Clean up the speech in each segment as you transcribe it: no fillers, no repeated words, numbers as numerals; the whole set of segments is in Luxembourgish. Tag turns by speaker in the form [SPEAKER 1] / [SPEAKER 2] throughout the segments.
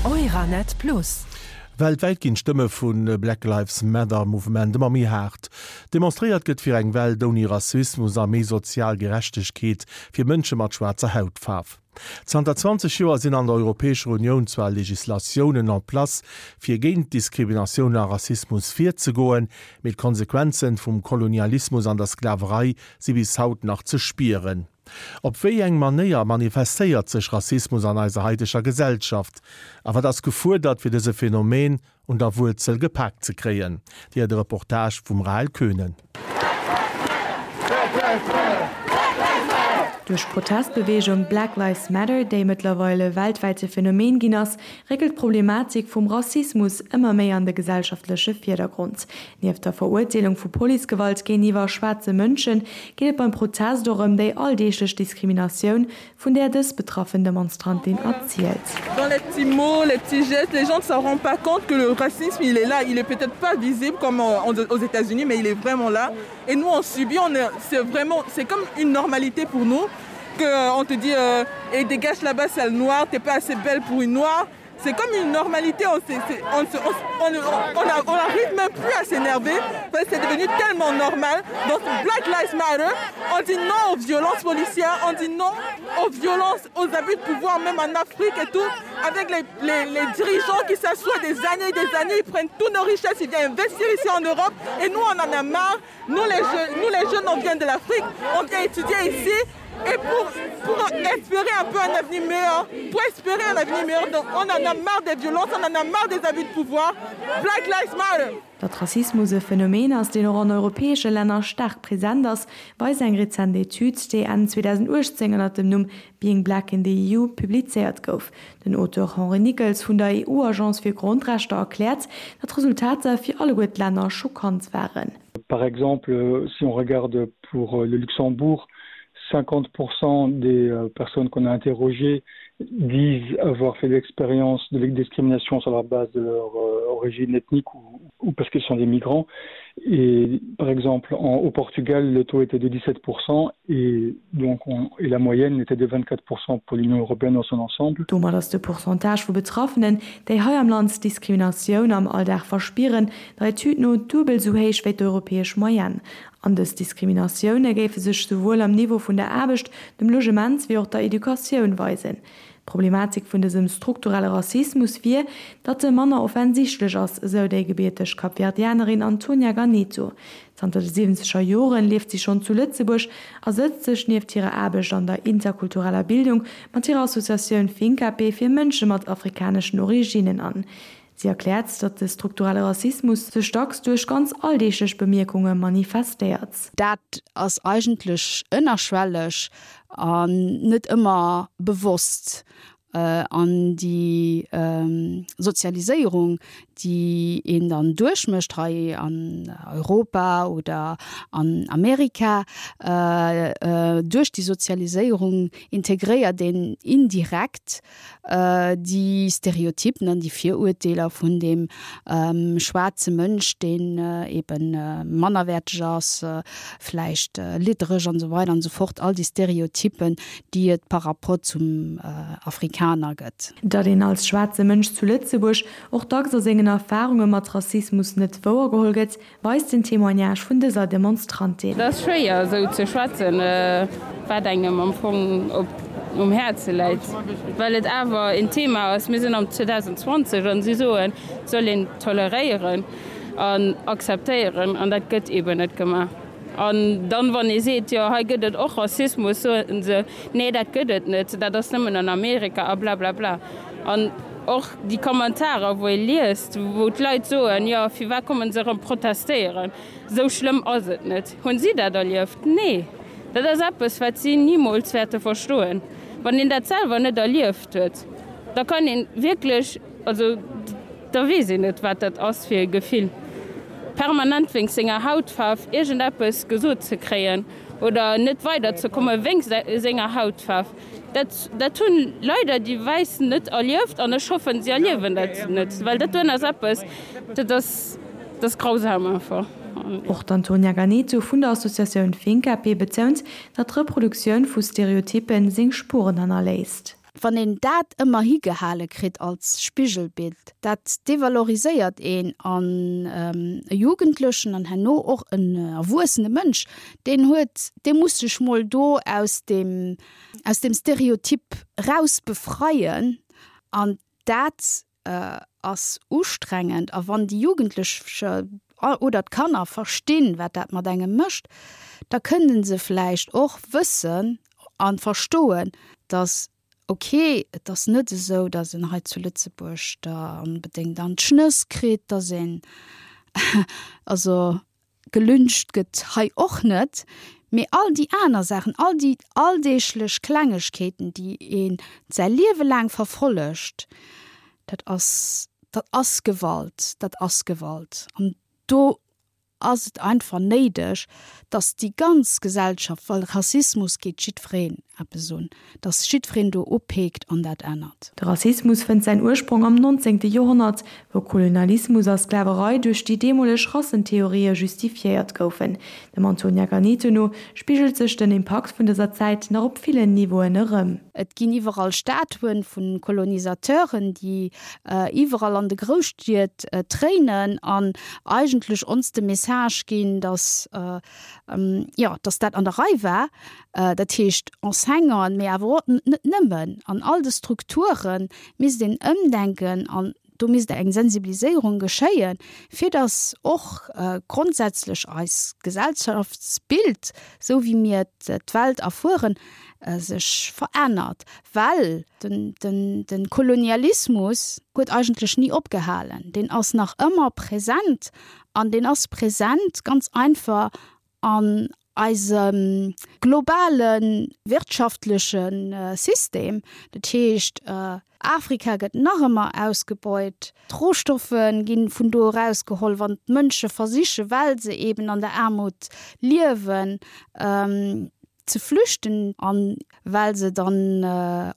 [SPEAKER 1] Euranet Plus.
[SPEAKER 2] Weltwäit ginn d'Stëmme vu Black Lives Matter Mouvement ëmmer méi haart. Demonstréiert gëtt fir eng Welt ouni Rassismus a méi sozial Gerechtegkeet fir Mënsche mat schwaarzer Hautfaarf. Zanter 20 Joer sinn an der Europäescher Unioun zwar Legislatiounen en place fir géint Diskriminatioun a Rassismus virzegoen, mee d'Konsequenzen vum Kolonialismus an der Sklaverei si bis haut nach ze spieren. Op wéi eng Manéier manifestéiert sech Rassismus an eiser haiteger Gesellschaft a wat ass gefuerdert fir dëse Phänomen un der Wuerzel gepaakt ze kréien? Dir de Reportage vum Rahel Koehnen.
[SPEAKER 3] Duerch d'Protestbeweegung Black Lives Matter, déi mëttlerweil e weltwäite Phänomen ginn ass, réckelt d'Problematik vum Rassismus ëmmer méi an de gesellschaftleche Virdergrond. Nieft der Verurteelung vu Policegewalt géintiwwer schwaarze Mënschen, geet et beim Protest och ëm déi alldeeglech Diskriminatioun, vun där dës betraffen Demonstrantin erzielt.
[SPEAKER 4] Dans les petits mots, les petits gestes, les gens ne s'en rendent pas compte que le racisme il est là, il est peut-être pas visible comme aux États-Unis mais il est vraiment là et nous on subit, on est, c'est vraiment, c'est comme une normalité pour nous que on te dit euh, et dégage là-bas sale noire, t'es pas assez belle pour une noire. C'est comme une normalité, on, on, on, on, on arrive même plus à s'énerver parce que c'est devenu tellement normal. Donc Black Lives Matter, on dit non aux violences policières, on dit non aux violences, aux abus de pouvoir, même en Afrique et tout, avec les, les, les dirigeants qui s'assoient des années et des années, ils prennent toutes nos richesses, ils viennent investir ici en Europe et nous on en a marre. Nous les, jeunes, nous les jeunes, on vient de l'Afrique, on vient étudier ici et pour, pour espérer un peu un avenir meilleur, pour espérer un avenir meilleur, donc on en a marre des violences, on en a marre des abus de pouvoir. Black Lives Matter!
[SPEAKER 3] Datt Rassismus e Phänomen ass, deen och an europäesche Länner staark present ass, weist eng rezent Etüd, déi Enn 2018 ënner dem Numm Being Black in the EU publizéiert gouf. Den Auteur Henri Nickels vun der EU-Agence fir Grondrechter erkläert, datt d'Resultater fir alleguer d'Länner schockant waren.
[SPEAKER 5] Par exemple, si on regarde pour le Luxembourg, 50% des personnes qu'on a interrogées disent avoir fait l'expérience de la discrimination sur la base de leur origine ethnique ou, ou parce qu'ils sont des migrants. Et par exemple, en, au Portugal, le taux était de 17% et donc on, et la moyenne était de 24% pour l'Union européenne dans son ensemble.
[SPEAKER 3] Domat ass de Pourcentage vu Betraffenen, déi hei am Land Diskriminatioun am Alldag verspieren, der Etüd no duebel sou héich wéi d'europäesch Moyenne. An dës Diskriminatioune géife sech souwuel am Niveau vun der Aarbecht, dem Logement wéi och der Educatioun weisen. D'Problematik vun dësem strukturelle Rassismus wier, datt e manner offensichtlech ass, esou déi gebierteg Kapverdianerin Antonia Ganeto. Zanter de siwwenzeger Joren lieft si schonn zu Lëtzebuerg a sëtzt sech nieft hirer Aarbecht an der interkultureller Bildung mat hirer Associatioun Fincape fir Mënsche mat afrikaneschen Originnen an. Si erkläert, datt de strukturelle Rassismus sech dacks duerch ganz alldeeglech Bemierkunge manifestéiert.
[SPEAKER 6] Dat ass eigentlech ënnerschwelleg an net ëmmer bewosst. An déi Sozialiséierung, déi een dann duerchmécht hei an Europa oder an Amerika, duerch déi Sozialiséierung integréiert een indirekt déi Stereotypen an déi Virurteeler vun deem schwaarze Mënsch, deen ebe mannerwäerteg ass, vläicht liddereg an esou weider an esou fort, all déi Stereotypen, déi et par rapport zum Afrikaner gëtt.
[SPEAKER 3] Datt een als schwaarze Mënsch zu Lëtzebuerg och dacks a sengen Erfarunge mat Rassismus net wouergeholl gëtt, Weist den Témoignage vun dëser Demonstrantin.
[SPEAKER 7] Et ass schwéier esou ze schwätzen, wat engem am Fong op um Häerze läit, well et awer een Thema ass. Mir sinn am 2020 an si soen, et soll een toleréieren an akzeptéieren an dat gëtt eeben net gemaach. An dann, wann ee seet, jo hei gëtt et och Rassismus, soen se, nee dat gëtt et net, dat ass nëmmen an Amerika a blablabla. An och déi Kommentarer, wou ee liest, wou d'Leit soen, jo firwat kommen se erëm protestéieren, esou schlëmm ass et net. Hunn si dat erlieft? Nee. Dat ass eppes, wat si nimools wäerte verstoen. Wann een dat selwer net erlieft huet, da kann ee wierklech, also da weess een net, wat dat ass fir e Gefill, permanent wéinst senger Hautfaarf iergendeppes gesot ze kréien oder net weiderzekomme wéinst senger Hautfaarf. Dat, dat hunn leider déi Wäiss net erlieft an ech hoffen, si erliewen dat net, well dat doen ass eppes, dat ass, dat ass grausam einfach.
[SPEAKER 3] Och d'Antonia Ganeto vun der Associatioun Fincape betount, datt d'Reproduktioun vu Stereotyppen seng Spueren hannerléisst.
[SPEAKER 6] Wann een dat ëmmer higehale kritt als Spigelbild, dat devaloriséiert een an e Jugendlechen an herno och en erwuessene Mënsch, deen huet, dee muss sech mol do aus deem, aus deem Stereotyp raus befreien an dat ass ustrengend. A wann déi Jugendlech oder d'Kanner verstinn, wat dat mat engem mécht, da kënnen se vläicht och wëssen a verstoen, datt ok, et ass net esou, datt een hei zu Lëtzebuerg da onbedéngt an d'Schnëss kritt, datt een also Gelyncht gëtt hei och net, mee all déi aner Saachen, all déi alldeeglech Klengegkeeten, déi ee säi Liewe laang verfollegt, dat ass, dat ass Gewalt, dat ass Gewalt. An do ass et einfach néideg, dass déi ganz Gesellschaft, well Rassismus geet jiddwereen eppes un, dass jiddwereen do upeekt an dat ännert.
[SPEAKER 3] De Rassismus fënnt säin Ursprong am 19. Joerhonnert, wou Kolonialismus a Sklaverei duerch déi deemoleg Rassentheorië justifiéiert goufen. Dem Antonia Ganeto no spigelt sech den Impakt vun dëser Zäit nach op villen Niveauen erëm.
[SPEAKER 6] Et ginn iwwerall Statuen vu Kolonisateuren, déi iwwerall an de Grousstied tréinen an eigentlech ons de Message ginn, dass, jo, dass dat an der Rei war. Dat heescht Enseignanten, mee awer och net nëmmen, an all de Strukture misst een ëmdenken an do misst eng Sensibiliséierung geschéien, fir datt och grondsätzlech eis Gesellschaftsbild, esou wéi mir d'Welt erfueren, sech verännert. Well de Kolonialismus huet eigentlech ni opgehalen, deen ass nach ëmmer present an deen ass present ganz einfach an eisem globale wirtschaftleche System, dat heescht Afrika gëtt nach ëmmer ausgebeut, d'Rohstoffe gi vun do erausgeholl, wann d'Mënsche versichen, well se eben an der Aarmut liewen, ze flüchten a well se dann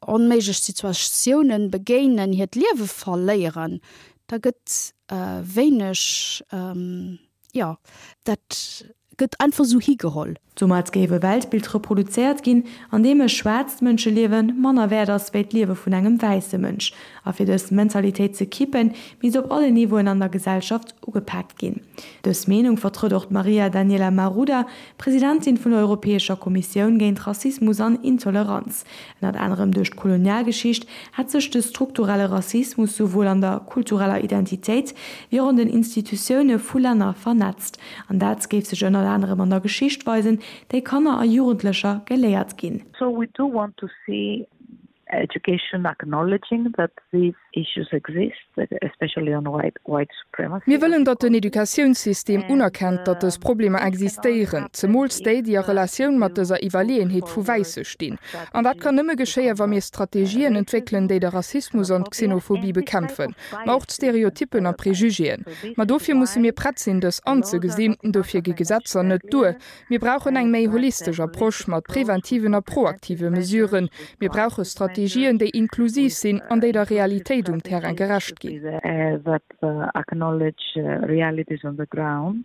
[SPEAKER 6] onméiglech Situatiounen begéinen, hiert Liewe verléieren, da gëtt wéineg Jo, dat gëtt einfach esou higeholl.
[SPEAKER 3] Domat géif e Weltbild reproduzéiert ginn, an deem e schwaarzt Mënscheliewe manner wäert ass wéi d'Liewe vun engem wäisse Mënsch. A fir dës Mentalitéit ze kippen, misst op allen Niveauen an der Gesellschaft ugepaakt ginn. Dës Meenung vertrëtt och d'Maria Daniela Maruda, Presidentin vun der Europäescher Kommissioun géint Rassismus an Intoleranz. Ënnert anerem duerch d'Kolonialgeschicht hätt sech de strukturelle Rassismus souwuel an der kultureller Identitéit wéi och an den Institutioune vu Länner vernetzt. An dat géif sech ënnert anerem an der Geschicht weisen, déi Kanner a Jugendlecher geléiert ginn.
[SPEAKER 1] So we do want to see education acknowledging that these issues exist, especially on white white supremacy.
[SPEAKER 8] Mir wëllen, datt den Educatiounssystem unerkennt, datt dës Problemer existéieren, zemools déi, déi a Relatioun mat dëser Iwwerleeënheet vu Wäisse stinn. An dat kann nëmme geschéien, wa mir Strategien entwéckelen, déi de Rassismus an d'Xenophobie bekämpfen, ma och d'Stereotyppen a Prejugéen. Ma dofir musse mir prett sinn, dës anzegesinn. Dofir gi Gesetzer net duer. Mir brauchen eng méi holistesch Approche mat preventiven a proaktive Mesuren. Mir brauche Strategien, déi inklusiv sinn an déi der Realitéit um Terrain gerecht ginn.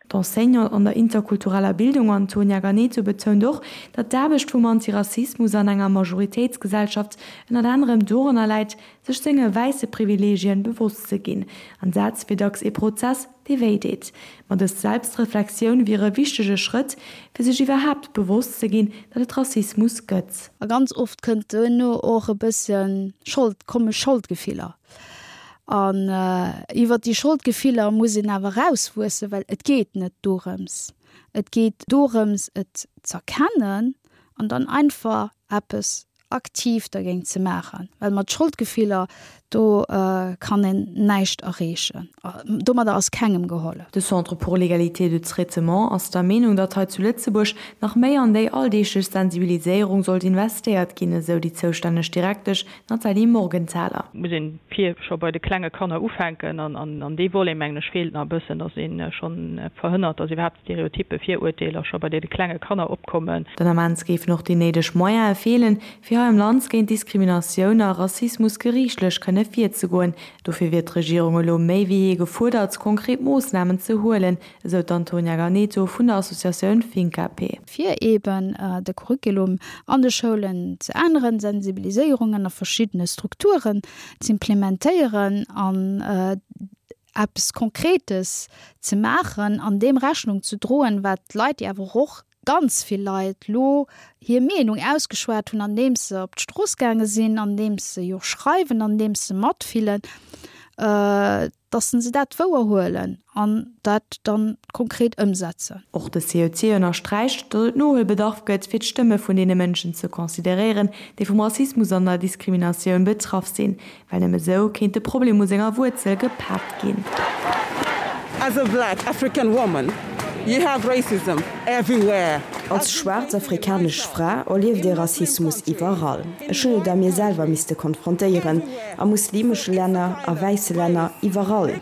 [SPEAKER 3] D'Enseignante an der interkultureller Bildung Antonia Ganeto betount och, datt d'Aarbecht vum Antirassismus an enger Majoritéitsgesellschaft ënnert anerem doranner läit, sech senge wäisse Privileegien bewosst ze ginn. An dat wier dacks ee Prozess, dee wéi deet. Ma dës Selbstreflexioun wier e wichtege Schrëtt, fir sech iwwerhaapt bewosst ze ginn, datt et Rassismus gëtt.
[SPEAKER 6] A ganz oft kënnt duerno och e bësse Schold, komme Scholdgefiller. An iwwer déi Scholdgefiller muss een awer erauswuessen, well et geet net dorëms. Et geet dorëms, et z'erkennen an dann einfach eppes aktiv dergéint ze maachen, well mat Scholdgefiller do kann een näischt erreechen. Domadder ass kengem gehollef.
[SPEAKER 3] De Centre pour l'égalité de traitement ass der Meenung, datt hei zu Lëtzebuerg nach méi an déi alldeeglech Sensibiliséierung sollt investéiert ginn, esou déi zoustänneg Direktesch Nathalie Morgenthaler.
[SPEAKER 9] Muss een vir scho bei de klenge Kanner ufänken an an dee Volet mengen ech feelt nach e bëssen, datt ee schonn verhënnert, datt iwwerhaapt Stereotyppe, Virurteeler scho bei deene klenge Kanner opkommen.
[SPEAKER 3] Den Ament géifen och déi néideg Moyene feelen, fir. fir hei am Land géint Diskriminatioun a Rassismus geriichtlech kënne virzegoen. Dofir wier d'Regierung elo méi wéi jee gefuerdert, konkret Moossnamen ze huelen, esou d'Antonia Ganeto vun der Associatioun Fincap.
[SPEAKER 6] Fir eeben de Curriculum an de Schoulen ze änneren, Sensibiliséierungen a verschiddene Strukturen z'implementéieren an eppes Konkretes ze maachen an deem Rechnung ze droen, wat d'Leit, déi awer och ganz vill Leit lo hir Meenung ausgeschwat hunn, andeems se op d'Strooss gaange sinn, andeems se jo schreiwen, andeems se matfillen, dass se dat wouer huelen an dat dann konkret ëmsetzen.
[SPEAKER 3] Och de CEC ënnersträicht, datt et Nohuelbedarf gëtt, fir d'Stëmme vun deene Mënschen ze consideréieren, déi vum Rassismus an der Diskriminatioun betraff sinn. Well nëmme sou kéint de Problem u senger Wuerzel gepaakt ginn.
[SPEAKER 4] As a black African woman, you have racism everywhere.
[SPEAKER 10] Als schwaarz afrikanesch Fra erlieft ee Rassismus iwwerall. Ech hunn et a mir selwer misste konfrontéieren, a muslimesche Länner, a wäisse Länner, iwwerall.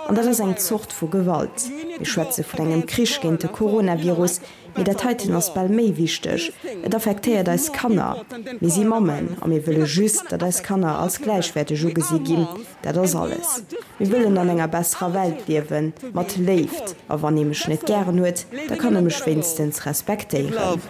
[SPEAKER 10] An dat ass eng Zort vu Gewalt. Mir schwätze vun engem Krich géint de Coronavirus, Mee dat heiten ass bal méi wichteg, Et affektéiert eis Kanner. Mir si Mammen a mir wëlle just, datt eis Kanner als gläichwäerteg ugesi ginn. Dat ass alles. Mir wëllen an enger besserer Welt liewen, mat Léift. A wann ee mech net gären huet, da kann e mech wéinstens respektéieren.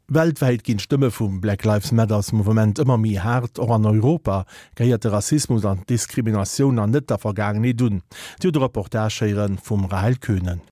[SPEAKER 2] Weltwäit ginn d'Stëmme vum Black Lives Matters Mouvement ëmmer méi haart. Och an Europa gehéiert de Rassismus an d'Diskriminatioun an net der Vergaangenheet un. Dir hutt e Reportage héiere vum Rahel Koehnen.